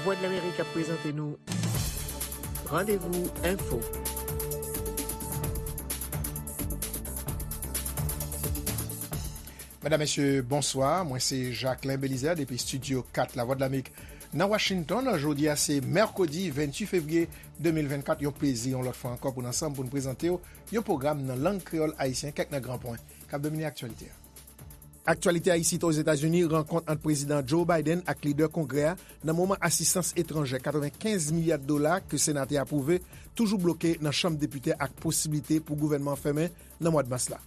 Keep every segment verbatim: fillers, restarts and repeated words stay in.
Vwadlamerik ap prezante nou Randevou Enfo. Medam, mesye, bonswa. Mwen se Jacquelin Belizaire depi Estidyo kat Lavwadlamerik nan Washington. Jodi a se mèkredi venntuit fevriye de mil vennkat. Yon plezi yon lòt fwa ankò pou n ansanm pou n prezante w yon pwogram nan lang kreyòl ayisyen, kèk nan gran pwen k ap domine aktyalite a. Aktyalite a isit Ozetazini, rankont ant Prezidan Joe Biden ak lidè Kongrè a nan moman asistans etranjè katrevenkenz milya dola ke Sena te apwouve toujou bloke nan Chanm Depite ak posiblite pou gouvènman an fèmen nan mwa mas la.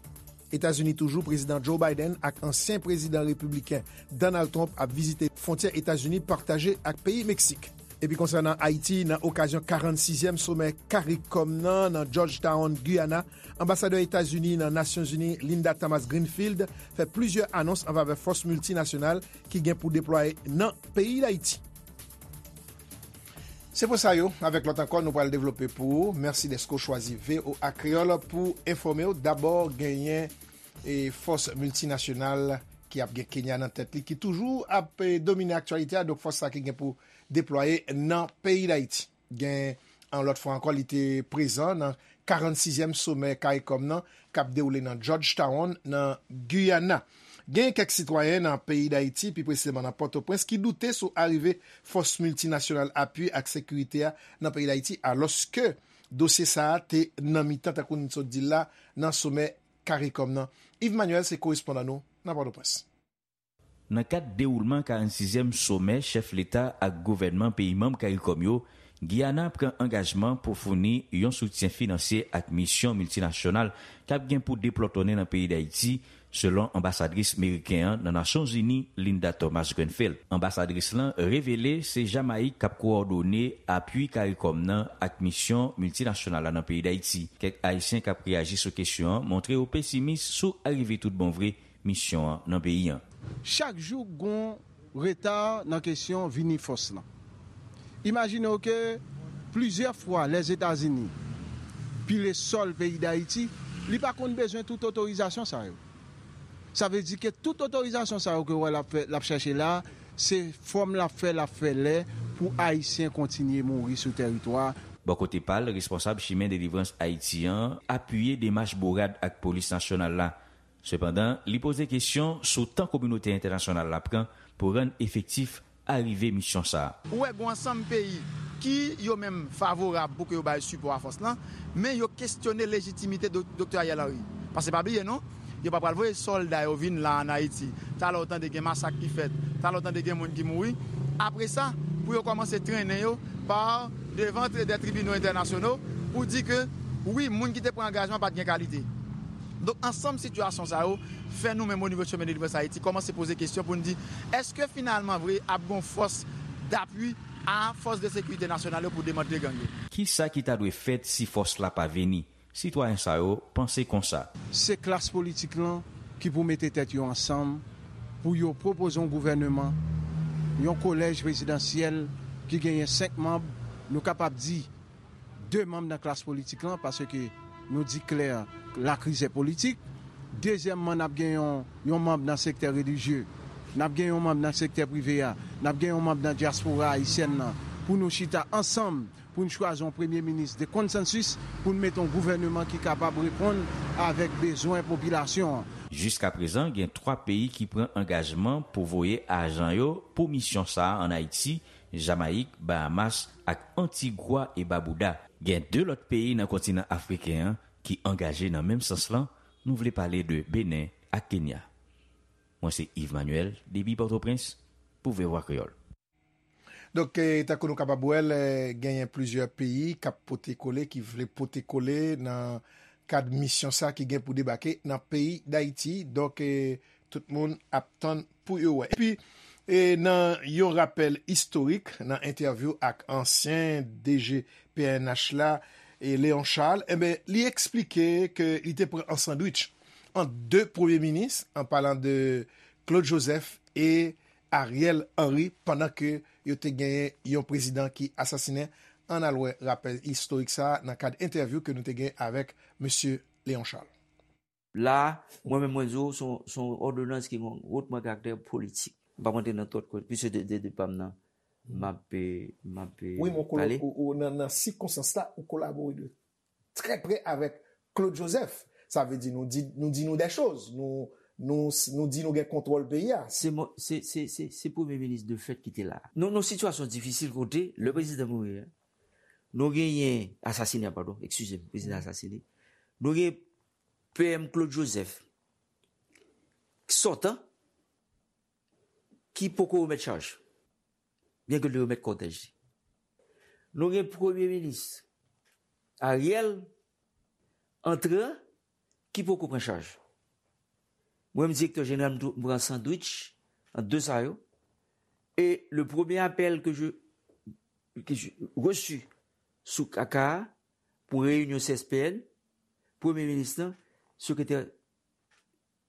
Etazini toujou, Prezidan Joe Biden ak ansyen prezidan repibliken Donald Trump ap vizite fwontyè Etazini pataje ak peyi Meksik. Epi konsènan Ayiti, nan okazyon karannsizyèm somè CARICOM nan, nan Georgetown, Guyana, anbasadè Etazini nan Nasyonzini, Linda Thomas-Greenfield, fè plizyè anons an favè fòs miltinasyonal ki gen pou deplwaye nan peyi Dayiti. Se pou sa yo, avèk lòt ankò, nou pral devlope pou ou. Mèsi dèske w chwazi V O A Kreyòl pou enfòme w. Dabò, genyen e fòs miltinasyonal ki ap gen Kenya nan tèt li, ki toujou ap e, domine aktyalite a. Donk, fòs sa ki gen pou deplwaye nan peyi Dayiti. Gen, yon lòt fwa ankò, li te prezan nan karannsizyèm somè CARICOM nan, k ap dewoule nan Georgetown, nan Guyana. Gen kèk sitwayen nan peyi Dayiti, pi presizeman nan Pòtoprens, ki doute sou arive fòs miltinasyonal apui ak sekirite a nan peyi Dayiti, alòske dosye sa a te nan mitan, tankou n sot di l la, nan somè CARICOM nan. Yves Manuel se korespondan nou nan Pòtoprens. Nan kad dewoulman karannsizyèm somè chèf leta ak gouvènman peyi manm CARICOM yo, Giyana pran angajman pou founi yon soutyen finansye ak misyon miltinasyonal k ap gen pou deplòtonnen nan peyi Dayiti, selon anbasadris meriken an nan Nasyonzini, Linda Thomas-Greenfield. Anbasadris lan revele se Jamayik k ap kowòdone apui CARICOM nan ak misyon miltinasyonal la nan peyi Dayiti. Kèk Ayisyen k ap reyaji sou kesyon an montre yo pesimis sou arive tout bon vre misyon an nan peyi an. Chak jou gon reta nan kesyon vini fòs lan. Imajine w ke plizyè fwa Lèzetazini pile sòl peyi Dayiti, li pa konn bezwen tout otorizasyon sa yo. Sa vle di ke tout otorizasyon sa yo ke w wè l ap fè, l ap chèche la, se fòm l ap fè, l ap fè lè pou Ayisyen kontinye mouri sou tèritwa. Bò kote pa l, responsab Chimen Delivrans Ayiti an apiye demach bourad ak polis nasyonal la. Sepandan, li poze kesyon sou tan kominote entènasyonal la pran pou rann efektif arive misyon sa a. Ou wè, gen ansanm peyi ki yo menm favorab pou ke yo bay sipò a fòs lan, men yo kestyone lejitimite do-, Doktè Ariel Henry. Paske pa bliye non, yo pa pral voye sòlda yo vin la ann Ayiti. Talè w tande gen masak ki fèt, talè w tande gen moun ki mouri. Apre sa, pou yo kòmanse trennen yo pa devan tri-, dè tribinal entènasyonal pou di ke, wi, moun ki te pran angajman pa t gen kalite. Donk, ansanm sitiyasyon sa yo fè nou menm o nivo Chimen Delivrans Ayiti kòmanse poze kesyon pou n di, èske finalman vre ap gon fòs dapui a fòs de sekirite nasyonal yo pou demantle gang yo? Kisa ki ta dwe fèt si fòs la pa vini? Sitwayen sa yo panse konsa. Se klas politik lan ki pou mete tèt yo ansanm pou yo pwopoze yon gouvèneman, yon kolèj prezidansyèl ki genyen senk manm, nou kapab di de manm nan klas politik lan, paske nou di klè, lakrizè politik. Dezyèmman, n ap gen yon, yon manm nan sektè relijye, n ap gen yon manm nan sektè prive a, n ap gen yon manm nan dyaspora ayisyèn nan, pou nou chita ansanm, pou n chwazi yon premye minis de konsansis, pou n mete yon gouvèneman ki kapab reponn avèk bezwen popilasyon an. Jiskaprezan, gen twa peyi ki pran angajman pou voye ajan yo pou misyon sa a ann Ayiti, Jamayik, Bahamas ak Antigwa e Babouda. Gen de lòt peyi nan kontinan afriken an ki angaje nan menm sans lan, nou vle pale de Benen ak Kenya. Mwen se Yves Manuel, depi Pòtoprens, pou V O A Kreyòl. Donk, eh, tankou nou kapab wè l, eh, genyen plizyè peyi k ap pote kole, ki vle pote kole nan kad misyon sa ki gen pou debake nan peyi Dayiti. Donk, eh, tout moun ap tann pou yo wè. Epi, eh, nan yon rapèl istorik, nan entèvyou ak ansyen D G P N H la, eh, Léon Charles, enben, li eksplike ke li te pran an sandwich ant de premye minis, an palan de Claude Joseph e Ariel Henry, pandan ke yo te genyen yon prezidan ki asasinen. Ann al wè rapèl istorik sa a nan kad entèvyou ke nou te gen avèk mesye Léon Charles. La a, mwen menm mwen di w, se yon, se yon òdonans ki gen yon wotman karaktè politik. M p ap rantre nan tout kote, piske de, de, de pa m nan. m ap, eh, m ap, eh, Wi, men ou kolo- pale. ou- ou- nan, nan sikonstans la, ou kolabore de trè prè avèk Claude Joseph. Sa vle di nou di nou, di nou de choz. Nou, nou, nou di nou gen kontwòl peyi a. Se mo- se- se- se- se premye minis de fèt ki te la. Nou nan sitiyasyon difisil kote, lè prezidan mouri a, nou genyen, asasine, padon, eskize m, prezidan asasine. Nou gen P M Claude Joseph, sòtan, ki poko remèt chaj, byen ke l te remèt kòtèj li. Nou gen premye minis Ariel, antran, ki poko pran chaj. Mwen menm, direktè jeneral, m tou- m pran sandwich ant de sa yo. E le premye apèl ke je, ke je reçu sou kaka pou reyinyon C S P N, premye minis lan, sekretè,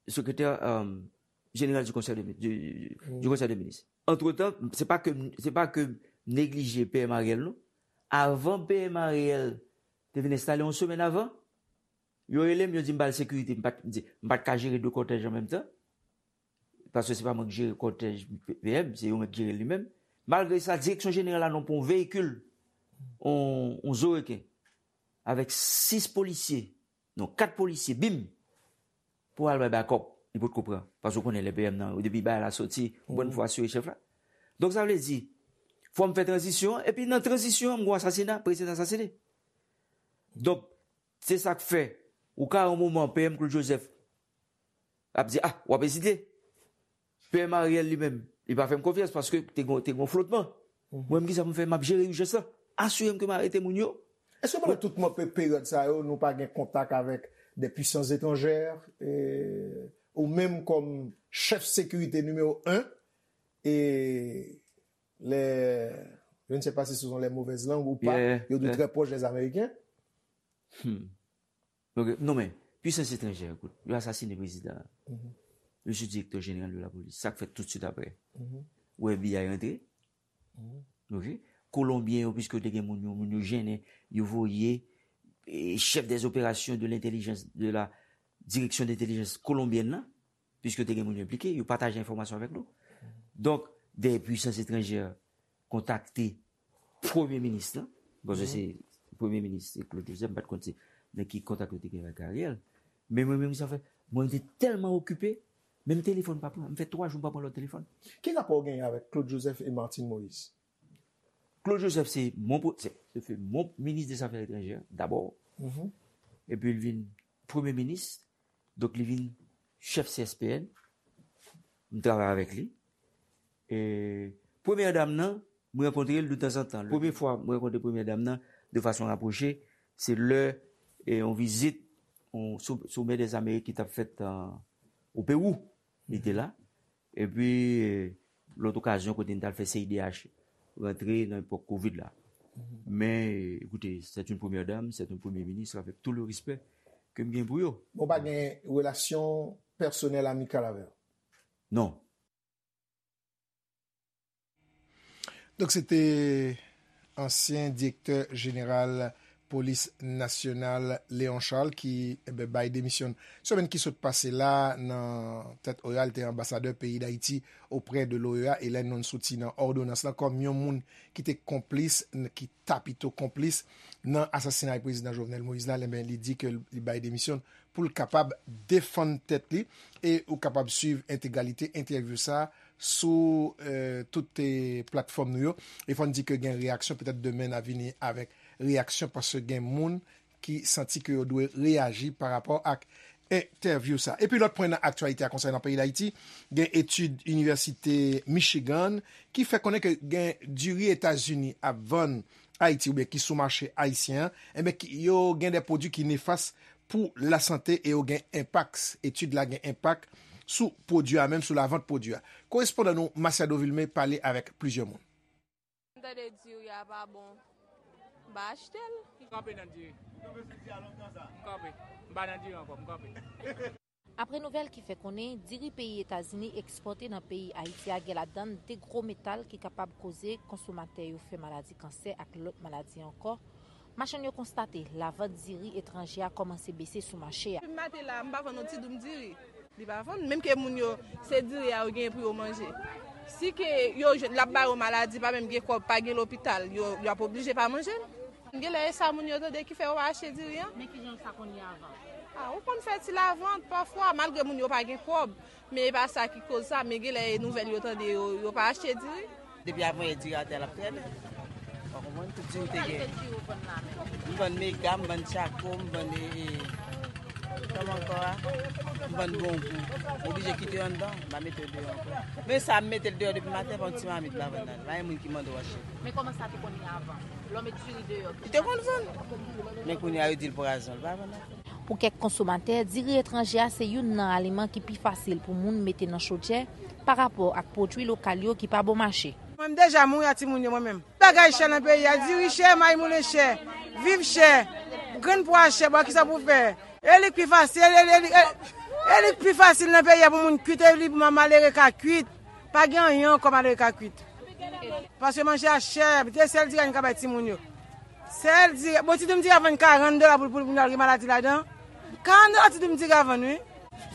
sekretè, euh, jeneral du Conseil de, du, du Conseil des ministres. Antretan, se pa ke, se pa ke m neglije P M Ariel, non. Avan P M Ariel te vin enstale, yon semèn avan, yo rele m, yo di m ba l sekirite, m pa t, m di, m pa t ka jere de kòtèj an menm tan. Paske se pa mwen ki jere kòtèj P M, se yo menm ki jere li menm. Malgre sa, direksyon jeneral la non pran yon veyikil, yon, yon zo reken, avèk sis polisye, non, kat polisye, bim, pou al bay bakòp, li potko pran. Paske w konnen lè P M nan, depi bagay la soti, ou konn fò asire chèf la. Donk, sa vle di, fò m fè tranzisyon an, epi nan tranzisyon an, m gon asasina, prezidan asasine. Donk, se sa k fè, ou ka yon moman, P M Claude Joseph ap di, ah, w ap ezite. P M Ariel li menm, li pa fè m konfyans paske te gon, te gon flotman. Mwen menm, kisa pou m fè? M ap jere ijans lan. Asire m ke m arete moun yo. Èske pandan tout mo- pe- peryòd sa yo, nou pa gen kontak avèk de puisans etranjè, e, ou menm kòm chèf sekirite nimewo en, e les, je ne sais pas si ce sont les mauvaises langues ou pas, Yeah, yo di yeah. Très proches des Américains. Ok, non, men, puisans etranjè, ekout, yo asasine prezidan an. Li se direktè jeneral de la polis. Sa k fèt toutswit apre? Ou wè F B I rantre. Ok? Kolonbyen yo, piske yo te gen moun yo, moun yo jennen, yo voye, eh, chef des opérations de l'intelligence, de la direction d'intelligence kolonbyèn nan, piske yo te gen moun yo enplike, yo pataje enfòmasyon avèk nou. Donk, dè puisans etranjè kontakte premye minis lan, paske se premye minis, se Claude Joseph, m pa t konn se nan ki kontak yo te gen avèk Ariel. Men mwen menm, sa fè, mwen te tèlman okipe, menm telefòn pa pran, m fè twa jou m pa pran lòt telefòn. Ki rapò w genyen avèk Claude Joseph e Martine Moïse? Claude Joseph, se mon, pro- se, se fut mon ministre des Affaires étrangères, d'abord. Epi li vin premye minis, donk li vin chèf C S P N. M travay avèk li. E premyè dam nan, mwen rankontre l de tanzantan. Premye fwa mwen rankontre premyè dam nan de fason rapwoche, se lè, e, yon vizit, yon sou- sommet des Amériques ki t ap fèt an, o Pewou. Li te la. Epi, e, lòt okazyon kote n t al fè C I D H rantre nan epòk kovid la. Men, e, écoutez, c'est une première dame, c'est un premier ministre, avec tout le respect ke m gen pou yo. Bon, pa gen relasyon pèsonèl amikal avè l? Non. Donk, se te ansyen direktè jeneral polis nasyonal Léon Charles ki, enben, bay demisyon semèn ki sot pase la nan tèt O E A. Li te anbasadè peyi Dayiti oprè de l'O E A e lè nou soti nan òdonans lan kòm yon moun ki te konplis, n- ki ta pito konplis nan asasinay prezidan Jovenel Moïse la, enben, li di ke li bay demisyon pou l kapab defann tèt li. E ou kapab swiv entegralite entèvyou sa a sou, eh, tout, eh, platfòm nou yo. E fò n di ke gen reyaksyon, petèt demen n a vini avèk reyaksyon paske gen moun ki santi ke yo dwe reyaji pa rapò ak entèvyou sa. Epi lòt pwen nan aktyalite a konsènan peyi Dayiti, gen etid Inivèsite Michigan ki fè konnen ke gen diri Etazini ap vann Ayiti oubyen ki sou mache ayisyen an, enben, ki- yo gen de pwodui ki nefas pou lasante e yo gen enpak, etid la gen enpak sou pwodui a menm, sou lavant pwodui a. Korespondan nou, Masiado Vilmé, pale avèk plizyè moun. M tande diri a pa bon, m pa achte l. M kanpe nan diri. M kanpe. M pa nan diri ankò, m kanpe. Apre nouvèl ki fè konnen diri peyi Etazini ekspòte nan peyi Ayiti a gen ladan l de gwo metal ki kapab koze konsomatè yo fè maladi kansè ak lòt maladi ankò, machann yo konstate lavant diri etranje a kòmanse bese sou mache a. Depi maten la, m pa vann yon ti doum diri. Li pa vann, menm ke moun yo, se diri a yo genyen pou yo manje. Si ke yo jwenn l ap ba yo maladi, pa menm gen kòb, pa gen lopital, yo, yo ap oblije pa manje l. Genlè e sa moun yo tande ki fè yo pa achte diri an. Men kijan sa konn ye avan? Ah, ou konn fè ti lavant pafwa, malgre moun yo pa gen kòb. Men e pa sa ki koz sa, men genlè e nouvèl yo tande yo, yo pa achte diri. Depi avan yè diri atè a l ap trènnen. Ou konprann? Tout diri te gen. M vann mega, m vann tchako, m vann e, e, kòman ankò a? M vann bongou. M oblije kite yo anndan, m pa mete yo deyò ankò. Men sa, m mete l deyò depi maten, pa yon ti mamit m pa vann nan. Pa gen moun ki mande w achte. Men kòman sa te konn ye avan? Lè w met diri deyò, li te konn vann. Men kounye a, yo di l pwazon, l pa vann ankò. Pou kèk konsomatè, diri etranje a se youn nan aliman ki pi fasil pou moun mete nan chodyè pa rapò ak pwodui lokal yo ki pa bon mache. Mwen menm deja mouri ak timoun yo mwen menm. Bagay chè nan peyi a, diri chè, mayi moulen chè, viv chè, grenn pwa chè, bon, kisa pou fè? E li k pi fasil, e li, e li, e, e li k pi fasil nan peyi a pou moun kuit, e li pou malere ka kuit. Pa gen anyen ankò malere ka kuit. Paske manje a chè, se sèl diri a nou ka bay timoun yo. Sèl diri, bon, ti doum diri a vann karant dola pou, pou, pou nou al gen maladi ladan. Karant dola ti doum diri a vann, wi.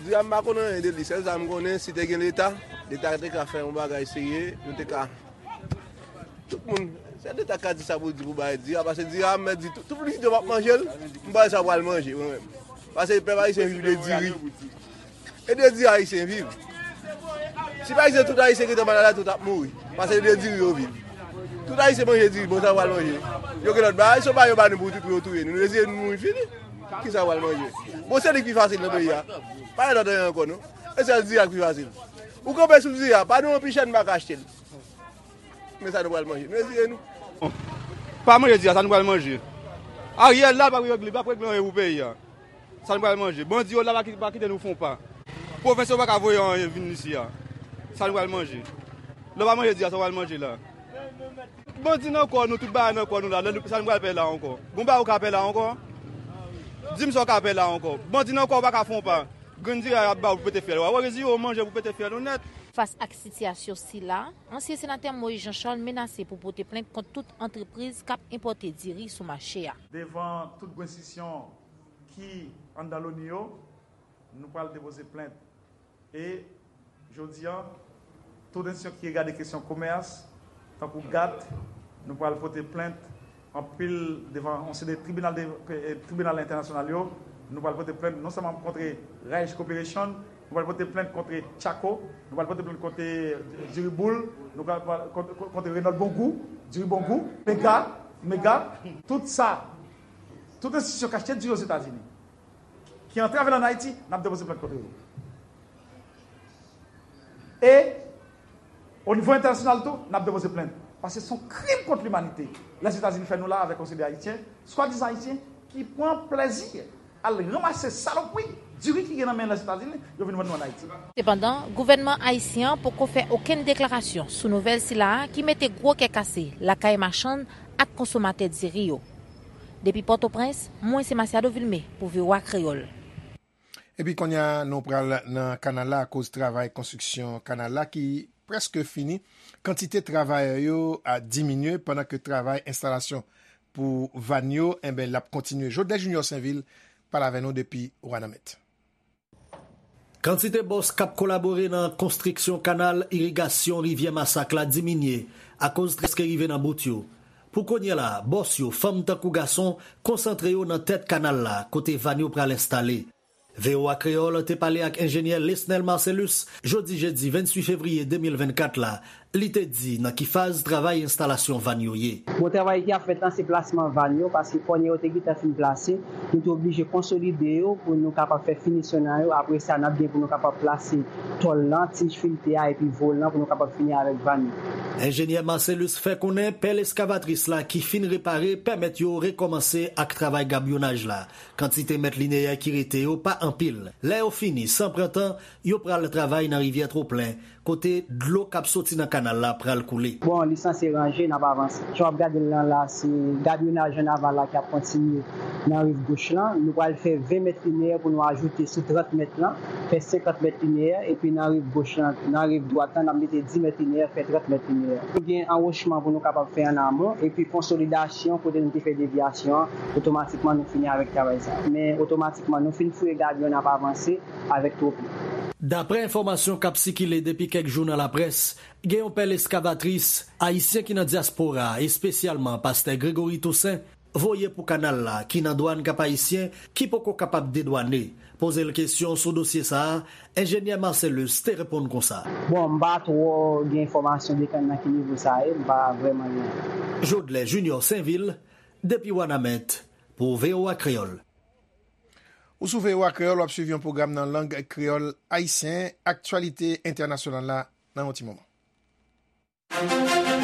Diri a m pa konn anyen de li, sèl sa m konnen, si te gen Leta, Leta te ka fè yon bagay serye, nou te ka, tout moun, se Leta k ka di sa pou l di pou bay diri a, paske diri a, m mèt di, tout, tout moun ki di yo p ap manje l, m pa wè sa pral manje, mwen menm. Paske pèp ayisyen viv de diri. E de diri ayisyen viv. Si pa egziste tout ayisyen ki te malad la, tout ap mouri. Paske de diri yo viv. Tout ayisyen manje diri, bon, sa yo pral manje. Yo gen lòt bagay, se pa yo ba nou pou, pou yo touye nou. Nou reziye nou mouri fini. Kisa yo pral manje? Bon, se li ki pi fasil nan peyi a. Pa gen lòt anyen ankò, non. E sèl diri a ki pi fasil. Ou kanpe sou diri a, pa nou anpi chè nou pa ka achte l. Men sa nou pral manje. Nou reziye nou. Pa manje diri a, sa nou pral manje? Ariel la, l ap regle, l ap regle anyen pou peyi a. Sa nou pral manje? Bandi yo la pa ki-, pa kite nou fè yon pa. Pwovens yo pa ka voye anyen vin isi a. Sa nou pral manje? Lè w pa manje diri a, sa w pral manje la? Bandi nan kò nou, tout bagay nan kò nou la. Lè nou, sa nou pral pè la ankò? Bon bagay ou ka pè la ankò? Di m sa w ka pè la ankò. Bandi nan kò ou pa ka fè yon pa. Grenn diri a y ap ba w pou pete fyèl ou a. Ou reziye w manje pou pete fyèl ou nèt. Fas ak sitiyasyon sila, ansyen senatè Moïse Jean Charles menase pou pote plent kont tout antrepriz k ap enpòte diri sou mache a. Devan tout grenn enstisyon ki anndan Loni yo, nou pral depoze plent. E jodi a, tout enstisyon ki regade kesyon komès, tankou GATT, nou pral pote plent anpil devan yon seri de tribinal de, eh, tribinal entènasyonal yo. Nou pral pote plent non sèlman kont Rice Corporation, nou pral pote plent kont Chaco, nou pral pote plent kont Diriboul, nou pral, pral kont, kont, kont Renault Bongou, Diri Bongou, Mega, Mega, tout sa, tout enstitisyon k achte diri Ozetazini, ki antre avè l ann Ayiti, n ap depoze plent kont yo. E, o nivo entènasyonal tou, n ap depoze plent. Paske se yon krim kont limanite. Lèzetazini fè nou la avèk yon seri de Ayisyen, swadizan Ayisyen, ki pran plèzi al ranmase salopri diri ki gen nan men Lèzetazini, yo vin vann nou ann Ayiti. Sepandan, gouvènman ayisyen an poko fè okenn deklarasyon sou nouvèl sila a ki mete gwo kè kase lakay machann ak konsomatè diri yo. Depi Pòtoprens, mwen se Masiado Vilmé pou V O A Kreyòl. Epi kounye a, nou pral nan kanal la akoz travay konstriksyon kanal la ki prèske fini. Kantite travayè yo a diminye pandan ke travay enstalasyon pou vàn yo, enben, l ap kontinye. Jodlè Junior Sainvil pale avè nou depi Wanament. Kantite bòs k ap kolabore nan konstriksyon kanal irigasyon Rivyè Masak la diminye akoz trè ke rive nan bout yo. Pou kounye a la, bòs yo, fanm tankou gason, konsantre yo nan tèt kanal la, kote vàn yo pral enstale. V O A Kreyòl te pale ak enjenyè Lesnel Marcelus jodi jedi venntuit fevriye de mil vennkat la, li te di nan ki faz travay enstalasyon vàn yo ye. Bon, travay ki ap fèt la, se plasman vàn yo, paske kònè yo te gentan fin plase, nou te oblije konsolide yo pou nou kapab fè finisyon nan yo. Apre sa, n ap gen pou nou kapab plase tòl lan, tij filte a, epi volan pou nou kapab fini avèk vàn yo. Enjenyè Marcelus fè konnen pèl eskavatris la ki fin repare pèmèt yo rekòmanse ak travay gabyonaj la. Kantite mèt lineyè ki rete yo pa anpil. Lè yo fini, san pran tan, yo pral travay nan rivyè Twoplen, kote dlo k ap soti nan kanal la pral koule. Bon, li sanse ranje, n ap avanse. Jan w ap gade l lan la, se gabyonaj an aval la k ap kontinye nan riv goch lan. Nou pral fè ven mèt lineyè pou nou ajoute sou trant mèt lan, fè senkant mèt lineyè, epi nan riv goch lan, nan riv dwat lan, n ap mete dis mèt lineyè, fè trant mèt lineyè. Nou gen anwochman pou nou kapab fè an amon, epi konsolidasyon kote nou te fè devyasyon an, otomatikman nou fini avèk travay sa a. Men otomatikman nou fin fouye gabyon, n ap avanse avèk Twoplen. Daprè enfòmasyon k ap sikile depi kèk jou nan laprès, gen yon pèl eskavatris ayisyen ki nan dyaspora a, espesyalman pastè Gregory Toussaint, voye pou kanal la, ki nan dwàn Kap Ayisyen, ki poko kapab dedwane. Poze l kesyon sou dosye sa a, enjenyè Marcellus te reponn konsa. Bon, m pa twò gen enfòmasyon de kan nan ki nivo sa ye, m pa vrèman gen. Jodlè Junior Sainvil, depi Wanament, pou V O A Kreyòl. Ou sou V O A Kreyòl, w ap swiv yon pwogram nan lang kreyòl ayisyen, aktyalite entènasyonal la nan yon ti moman.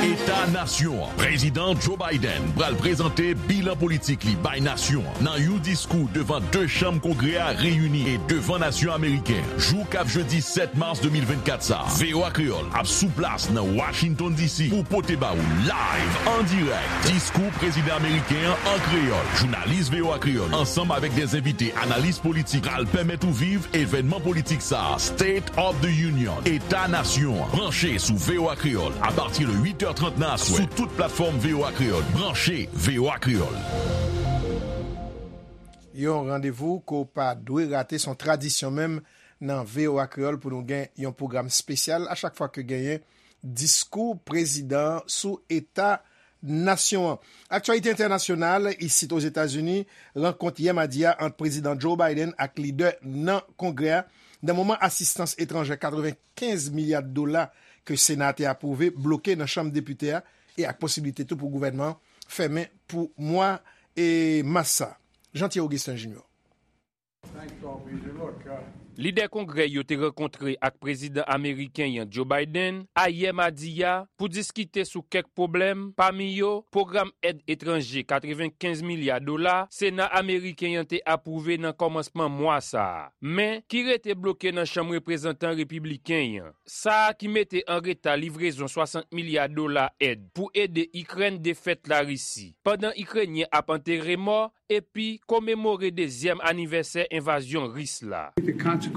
Eta nasyon an. Prezidan Joe Biden pral prezante bilan politik li bay nasyon an nan yon diskou devan de chanm Kongrè a reyini e devan nasyon ameriken an. Jou k ap jedi sèt mas de mil vennkat sa a, V O A Kreyòl ap sou plas nan Washington D C pou pote ba ou live, an dirèk, diskou prezidan ameriken an an kreyòl. Jounalis V O A Kreyòl, ansanm avèk de envite analis politik, pral pèmèt ou viv evènman politik sa a, State of the Union, Eta Nasyon an. Branche sou V O A Kreyòl apati de uit è trant nan aswè sou tout platfòm V O A Kreyòl. Branche V O A Kreyòl. Yon randevou ke w pa dwe rate, se yon tradisyon menm nan V O A Kreyòl pou nou gen yon pwogram espesyal a chak fwa ke genyen diskou prezidan an sou eta nasyon an. Aktyalite entènasyonal, isit Ozetazini, rankont yè madi a ant Prezidan Joe Biden ak lidè nan Kongrè a, nan moman asistans etranjè katrevenkenz milya dola ke Sena a te apwouve bloke nan Chanm Depite a, e ak posiblite tou pou gouvènman an fèmen pou mwa e mas sa a. Jean Thierry Augustin Junior. Lidè Kongrè yo te rankontre ak prezidan ameriken an Joe Biden ayè madi a pou diskite sou kèk pwoblèm, pami yo pwogram èd etranje katrevenkenz milya dola Sena ameriken an te apwouve nan kòmansman mwa sa a, men ki rete bloke nan Chanm Reprezantan repibliken an. Sa a ki mete an reta livrezon swasant milya dola èd pou ede Ikrèn defèt Larisi, pandan Ikrenyen ap antere mò epi komemore dezyèm anivèsè envazyon Ris la.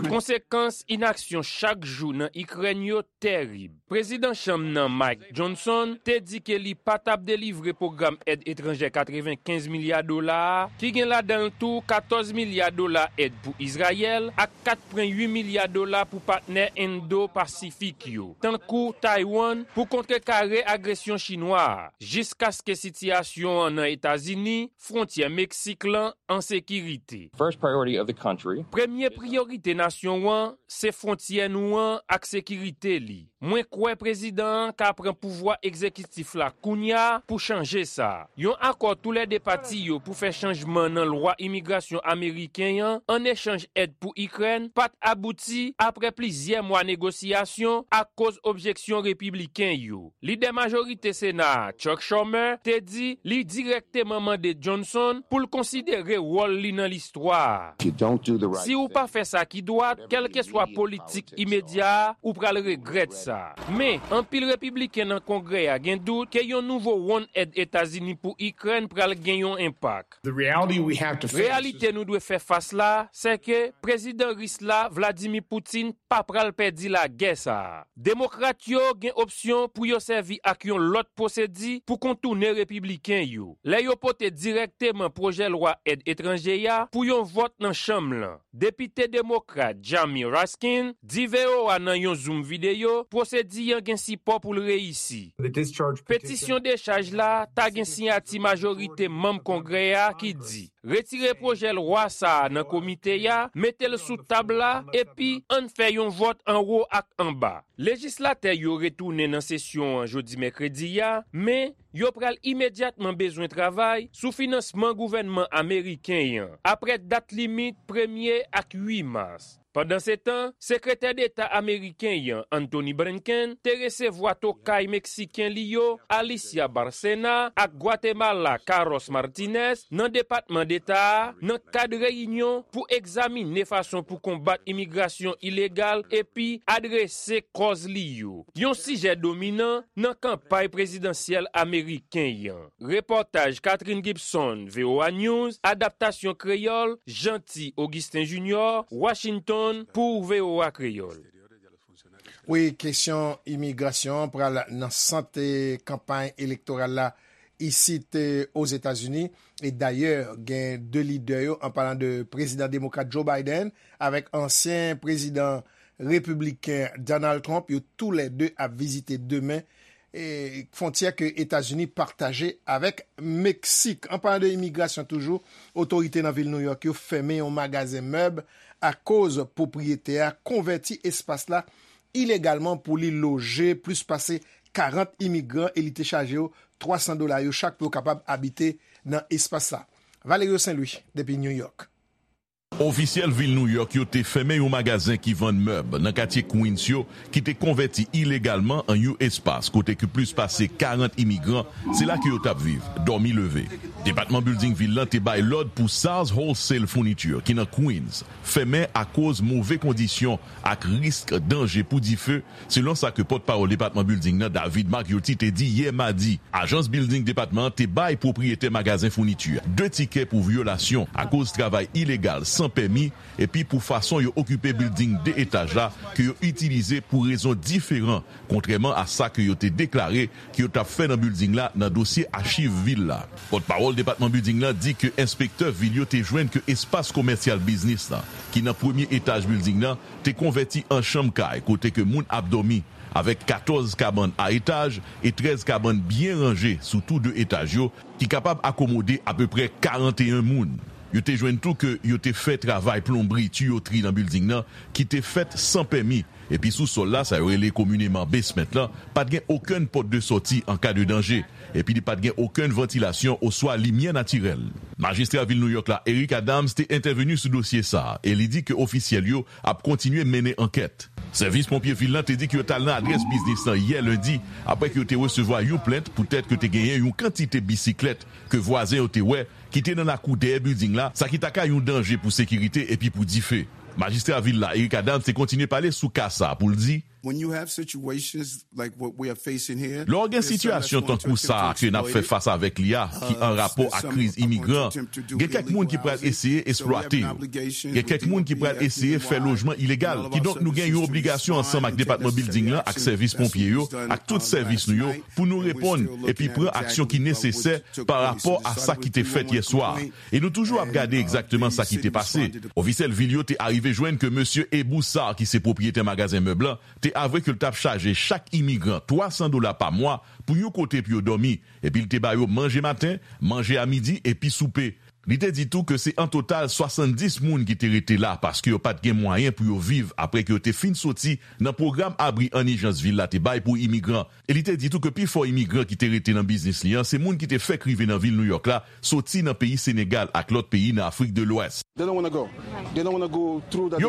Konsekans inaksyon chak jou nan Ikrèn yo terib. Prezidan Chanm nan, Mike Johnson, te di ke li pa t ap delivre pwogram èd etranjè katrevenkenz milya dola a, ki gen ladan l tou katòz milya dola èd pou Izrayèl ak kat pwen uit milya dola pou patnè Endo-Pasifik yo, tankou Taiwan, pou kontrekare agresyon chinwa a, jiskaske sitiyasyon an nan Etazini, fwontyè Meksik lan, an sekirite. First priority of the country. Premye priyorite nasyon an se fwontyè nou an ak sekirite li. Mwen kwè prezidan an ka pran pouvwa egzekitif la kounye a pou chanje sa. Yon akò toulède pati yo pou fè chanjman nan lwa imigrasyon ameriken an, an echanj èd pou Ikrèn, pa t abouti apre plizyè mwa negosyasyon akoz objeksyon repibliken yo. Lidè majorite Sena a, Chuck Schumer, te di li dirèkteman mande Johnson pou l konsidere wòl li nan listwa a. Si w pa fè sa ki dwat, kèlkeswa politik imedya a, ou pral regrèt sa. Men, anpil repibliken nan Kongrè a gen dout ke yon nouvo wonn èd Etazini pou Ikrèn pral gen yon enpak. Reyalite nou dwe fè fas la, se ke prezidan ris la, Vladimir Putin, pa pral pèdi lagè sa a. Demokrat yo gen opsyon pou yo sèvi ak yon lòt pwosedi pou kontounen repibliken yo, lè yo pote dirèkteman pwojè lwa èd etranje a pou yon vòt nan chanm lan. Depite demokrat Jamie Raskin di V O A nan yon Zoom videyo pwosedi an gen sipò pou l reyisi. Petisyon dechaj la ta gen siyati majorite manm Kongrè a ki di, retire pwojè lwa sa a nan komite a, mete l sou tab la, epi ann fè yon vòt anwo ak anba. Lejislatè yo retounen nan sesyon an jodi mèkredi a, men yo pral imedyatman bezwen travay sou finansman gouvènman ameriken an, apre dat limit premye ak uit mas. Pandansetan, Sekretè Deta ameriken an, Antony Blinken, te resevwa tokay meksiken li yo, Alicia Bárcena, ak Gwatemala, Carlos Martínez, nan Depatman Deta a, nan kad reyinyon pou egzamine fason pou konbat imigrasyon ilegal epi adrese kòz li yo, yon sijè dominan nan kanpay prezidansyèl ameriken an. Repòtaj Catherine Gibson, V O A News, adaptasyon kreyòl, Jeanty Augustin Junior, Washington, pou V O A Kreyòl. Wi, kesyon imigrasyon an pral nan sant, eh, kanpay elektoral la isit, eh, Ozetazini. E dayè, gen de lidè yo, an palan de prezidan demokrat Joe Biden avèk ansyen prezidan Repibliken Donald Trump, yo toulède ap vizite demen, e, fwontyè ke Etazini pataje avèk Meksik. An palan de imigrasyon toujou, otorite nan vil Nouyòk yo fèmen yon magazen mèb akoz pwopriyetè a konvèti espas la ilegalman pou li loje plis pase karant imigran e li te chaje yo twa san dola yo chak pou yo kapab abite nan espas la. Valerio Saint Louis, depi New York. Ofisyèl vil Nouyòk yo te fèmen yon magazen ki vann mèb nan katye Queens yo ki te konvèti ilegalman an yon espas kote ke plis pase karant imigran se la ke yo t ap viv, dòmi leve. Depatman Bilding vil lan te bay lòd pou Sars Wholesale Furniture ki nan Queens fèmen akoz move kondisyon ak risk danje pou dife, selon sa ke pòtpawòl Depatman Bilding nan, David Margiotti, te di yè madi. Ajans bilding depatman an te bay pwopriyetè magazen founiti a de tikè pou vyolasyon akoz travay ilegal san pèmi epi pou fason yo okipe bilding de etaj la ke yo itilize pou rezon diferan, kontrèman a sa ke yo te deklare ke yo t ap fè nan bilding la nan dosye achiv vil la. Pòtpawòl depatman bilding lan di ke enspektè vil yo te jwenn ke espas komèsyal biznis lan, ki nan premye etaj bilding lan, te konvèti an chanm kay kote ke moun ap dòmi, avèk katòz kabann a etaj e trèz kabann byen ranje sou tou de etaj yo, ki kapab akomode apeprè karanteyen moun. Yo te jwenn tou ke yo te fè travay plonbri, tiyotri nan bilding nan, ki te fèt san pèmi, epi sou sòl la, sa yo rele komineman basement lan, pa t gen okenn pòt de sòti an ka de danje, epi li pa t gen okenn vantilasyon oswa limyè natirèl. Majistra vil Nouyòk la, Eric Adams, te entèveni sou dosye sa a, e li di ke ofisyèl yo ap kontinye mennen ankèt. Sèvis ponpye vil lan te di ke yo t al nan adrès biznis lan yè lendi, apre ke yo te resevwa yon plent poutèt ke te genyen yon kantite bisiklèt ke vwazen yo te wè ki te nan lakou dèyè bilding la, sa ki ta ka yon danje pou sekirite epi pou dife. Majistra vil la, Eric Adams, te kontinye pale sou ka sa a pou l di, When you have situations like what we are facing here, Lè w gen sitiyasyon tankou sa a ke n ap fè fas avèk li a, ki an rapò ak kriz imigran, gen kèk moun ki pral eseye eksplwate yo. Gen kèk moun ki pral eseye fè lojman ilegal. Kidonk, nou gen yon obligasyon ansanm ak Depatman Bilding lan, ak sèvis ponpye yo, ak tout sèvis nou yo, pou nou reponn epi pran aksyon ki nesesè pa rapò a sa ki te fèt yè swa a. E nou toujou ap gade egzakteman sa ki te pase. Ofisyèl vil yo te arive jwenn ke mesye Ebou Sarr, ki se pwopriyetè magazen mèb lan, te avwe ke l t ap chaje chak imigran twa san dola pa mwa pou yon kote pou yo dòmi, epi l te ba yo manje maten, manje a midi epi soupe. Li te di tou ke se an total swasanndis moun ki te rete la paske yo pa t gen mwayen pou yo viv apre ke yo te fin soti nan pwogram abri an ijans vil la te bay pou imigran. E li te di tou ke pifò imigran ki te rete nan biznis li an se moun ki te fèk rive nan vil Nouyòk la soti nan peyi Senegal ak lòt peyi nan Afrik de Lwès. Yo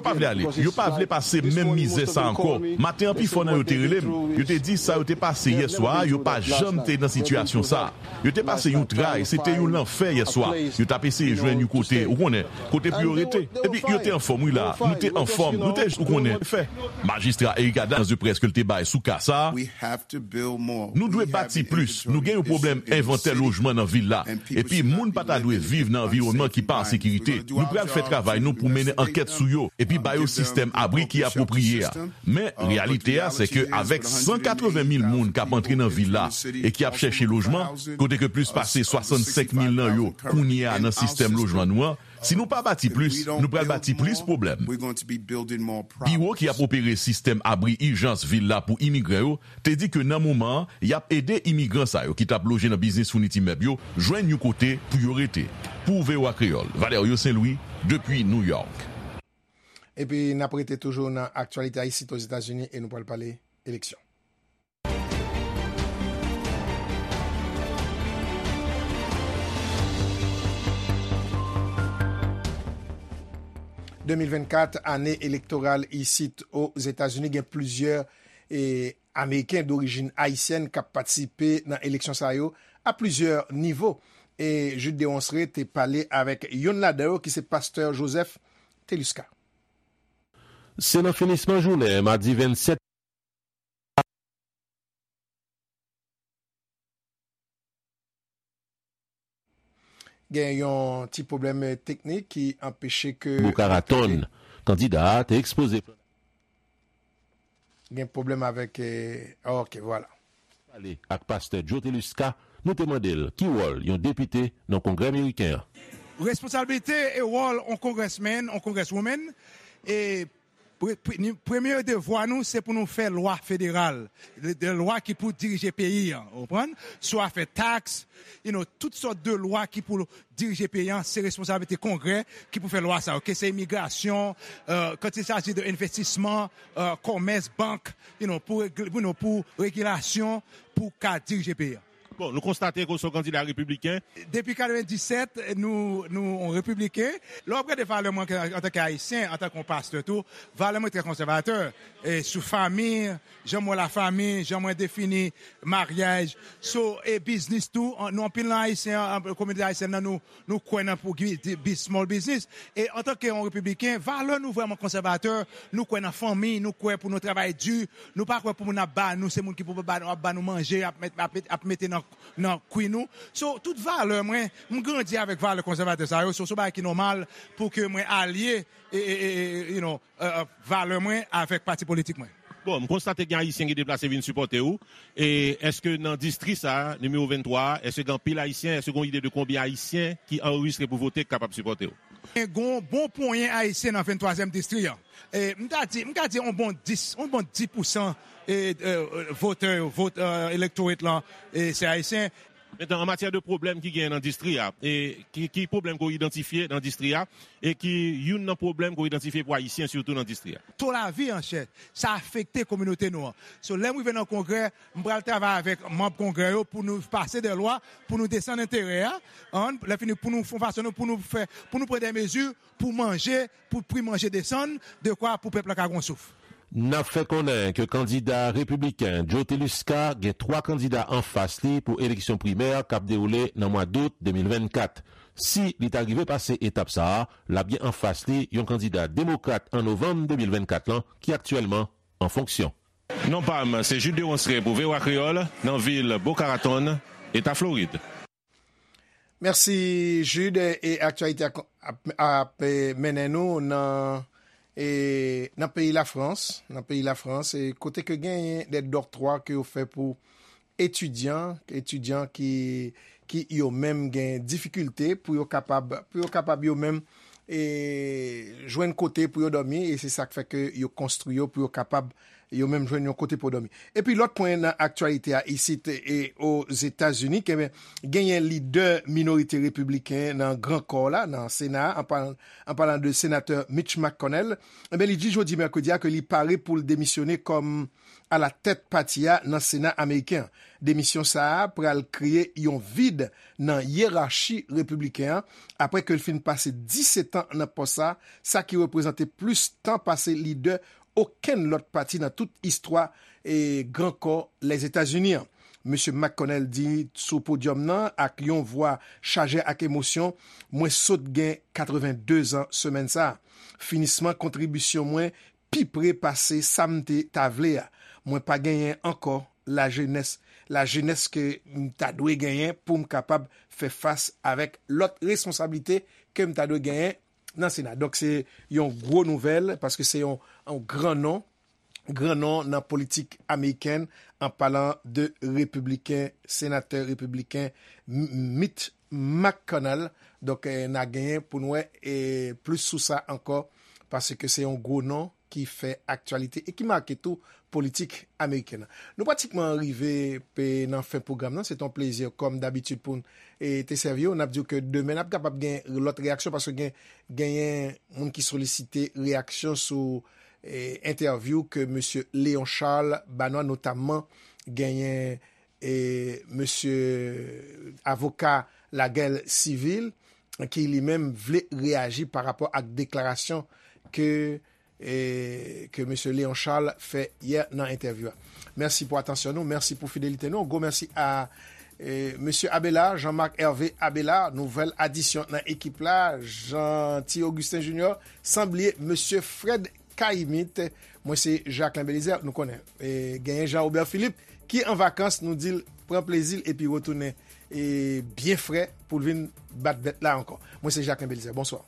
pa vle ale, yo pa vle pase menm mizè sa ankò. Maten an, pifò nan yo te rele m. Yo te di sa yo te pase yè swa a, yo pa janm te nan sitiyasyon sa a. Yo te pase yon tray, se te yon lanfè yè swa. Yo t ap eseye jwenn yon kote, ou konnen, kote pou yo rete. Epi yo te anfòm, wi la. Nou te anfòm, nou te, ou konnen, fè. Majistra Eric Adams, nan près ke l te bay sou ka sa a, Nou dwe bati plis. Nou gen yon pwoblèm envantè lojman nan vil la. Epi moun pa ta dwe viv nan anviwònman ki pa an sekirite. Nou pral fè travay nou pou mennen ankèt sou yo, epi ba yo sistèm abri ki apwopriye a. Men, reyalite a, se ke avèk san katreven mil moun k ap antre nan vil la e ki ap chèche lojman, kote ke plis pase swasannsenk mil nan yo kounye a nan sistèm lojman nou an, si nou pa bati plis, nou pral bati plis pwoblèm. Biwo ki ap opere sistèm abri ijans vil la pou imigran yo te di ke nan moman an, y ap ede imigran sa yo ki t ap loje nan biznis founiti mèb yo jwenn yon kote pou yo rete. Pou V O A Kreyòl, Valerio Saint Louis, depi New York. Epi n ap rete toujou nan aktyalite a isit Ozetazini e nou pral pale eleksyon. De mil vennkat, ane elektoral isit Ozetazini, gen plizyè e, Ameriken dorijin ayisyèn k ap patisipe nan eleksyon sa yo a plizyè nivo. E Jude Deronceray te pale avèk youn ladan yo ki se pastè Joseph Telusca. Se nan finisman jounen madi vennsèt. Gen yon ti pwoblèm teknik ki anpeche ke. Boca Raton, kandida a te ekspoze. Gen pwoblèm avèk. Eh, ok, vwala. Pale ak pastè Joe Telusca, nou te mande l ki wòl yon depite nan Kongrè Meriken an. Responsablite e wòl yon congressman, yon congresswoman, e Pre- pre- ni- Premye devwa nou, se pou nou fè lwa federal, de, de lwa ki pou dirije peyi an, ou konprann? Swa fè taks, you know, tout sòt de lwa ki pou dirije peyi an, se responsablite Kongrè ki pou fè lwa sa yo. Ke se imigrasyon, euh, quand il s'agit de envestisman, euh, kòmès, bank, you know, pou, regle- you know, pou regilasyon, pou ka dirije peyi an. Bon, nou konstate ke w se yon kandida repibliken. Depi katrevenndisèt, nou, nou yon repibliken. Lè w ap gade valè mwen ke- antanke Ayisyen, antanke yon pastè tou, valè mwen trè konsèvatè. E sou fanmi, jan mwen wè lafanmi, jan mwen defini maryaj. So, e biznis tou, an- nou anpil nan Ayisyen, an- kominote ayisyèn nan, nou, nou kwè nan pou bi- bi- small business. E antanke yon repibliken, valè nou vrèman konsèvatè, nou kwè nan fanmi, nou kwè pou nou travay di, nou pa kwè pou moun ap ba nou, se moun ki pou ba, ap ba nou manje, ap, met, ap, met, ap mete nan, nan kwi nou. So, tout valè mwen, m grandi avèk valè konsèvatè sa yo. So, se yon bagay ki nòmal pou ke mwen alye, e, e, e, e, you know, e, e, valè mwen avèk pati politik mwen. Bon, m konstate gen Ayisyen ki deplase vin sipòte w. E èske nan distri sa a, nimewo venntwa a, èske gen anpil Ayisyen? Èske gen yon ide de konbyen Ayisyen ki anrejistre pou vote ki kapab sipòte w? Gen yon bon ponyen Ayisyen nan venntwazyèm distri an. E, m ta di, m ka di yon bon dis, yon bon dis pousan, e, e, votè yo, vot, e, electorate lan, e, se Ayisyen. Mentnan, an matyè de pwoblèm ki genyen nan distri a, e ki, ki pwoblèm ke w idantifye nan distri a, e ki youn nan pwoblèm ke w idantifye pou Ayisyen sitou nan distri a? To lavi an chè, sa afekte kominote nou an. So, lè m rive nan Kongrè, m pral travay avèk manm Kongrè yo pou nou pase de lwa, pou nou desann enterè a, an, lè fini pou nou fè yon fason nou, pou nou fè, pou nou pran de mezi pou manje, pou pri manje desann, de kwa pou pèp la ka gon souf. N ap fè konnen ke kandida repibliken Joe Teluska gen twa kandida anfas li pou eleksyon primè k ap dewoule nan mwa dout de mil vennkat. Si li ta rive pase etap sa a, l ap gen anfas li yon kandida demokrat an novanm de mil vennkat lan ki aktyèlman an fonksyon. Non pa m, se Jude Deronceray pou V O A Kreyòl, nan vil Boca Raton, Eta Florid. Mèsi, Jude. E aktyalite a ap, ap, ap, e, mennen nou nan, e, nan peyi Lafrans, nan peyi Lafrans, e, kote ke genyen de dòktwa ke yo fè pou etidyan, etidyan ki, ki yo menm gen difikilte pou yo kapab, pou yo kapab yo menm, e, jwenn kote pou yo dòmi, e se sa k fè ke yo konstwi yo pou yo kapab yo menm jwenn yon kote pou dòmi. Epi lòt pwen nan aktyalite a isit e Ozetazini, ke genyen lidè minorite repibliken nan Gran Kò la, nan Sena a, an palan, an palan de senatè Mitch McConnell, enben, li di jodi mèkredi a ke li pare pou l demisyone kòm alatèt pati a nan Sena ameriken an. Demisyon sa a pral kreye yon vid nan yerachi repibliken an, apre ke l fin pase disèt an nan pòs sa, sa ki reprezante plis tan pase lidè okenn lòt pati nan tout istwa e Gran Kò Lèzetazini an. Mesye McConnell di sou podyòm nan ak yon vwa chaje ak emosyon, "Mwen sot gen katrevenndezan semèn sa a. Finisman kontribisyon mwen pi pre pase sa m te ta vle a. Mwen pa genyen ankò lajenès, lajenès ke m ta dwe genyen pou m kapab fè fas avèk lòt responsablite ke m ta dwe genyen nan Sena." Donk, se yon gwo nouvèl, paske se yon, yon gran non, gran non nan politik amerikèn, an palan de repibliken, senatè repibliken M-, Mitch McConnell. Donk, eh, n a genyen pou n wè, eh, plis sou sa ankò, paske se yon gwo non ki fè aktyalite e ki make tou politik amerikèn nan. Nou pratikman rive pe nan fen pwogram nan. Se te yon plezi, kòm dabitid, pou n, e, te sèvi w. N ap di w ke demen n ap kapab gen lòt reyaksyon, paske gen, genyen moun ki solisite reyaksyon sou, e, entèvyou ke mesye Léon Charles ba nou an, notamman genyen, e, mesye avoka Lagèl Sivil, ki li menm vle reyaji pa rapò ak deklarasyon ke, e, ke mesye Léon Charles fè yè nan entèvyou a. Mèsi pou atansyon nou, mèsi pou fidelite nou. Gwo mèsi a, e, mesye Abela, Jean-Marc Hervé Abela, nouvèl adisyon nan ekip la, Jeanty Augustin Junior, san bliye mesye Fred Caïmite. Mwen se Jacquelin Belizaire, nou konnen, e, genyen Jean Robert Philippe ki an vakans, nou di l pran plezi l epi retounen, e, byen fre pou l vin bat bèt la ankò. Mwen se Jacquelin Belizaire, bonswa.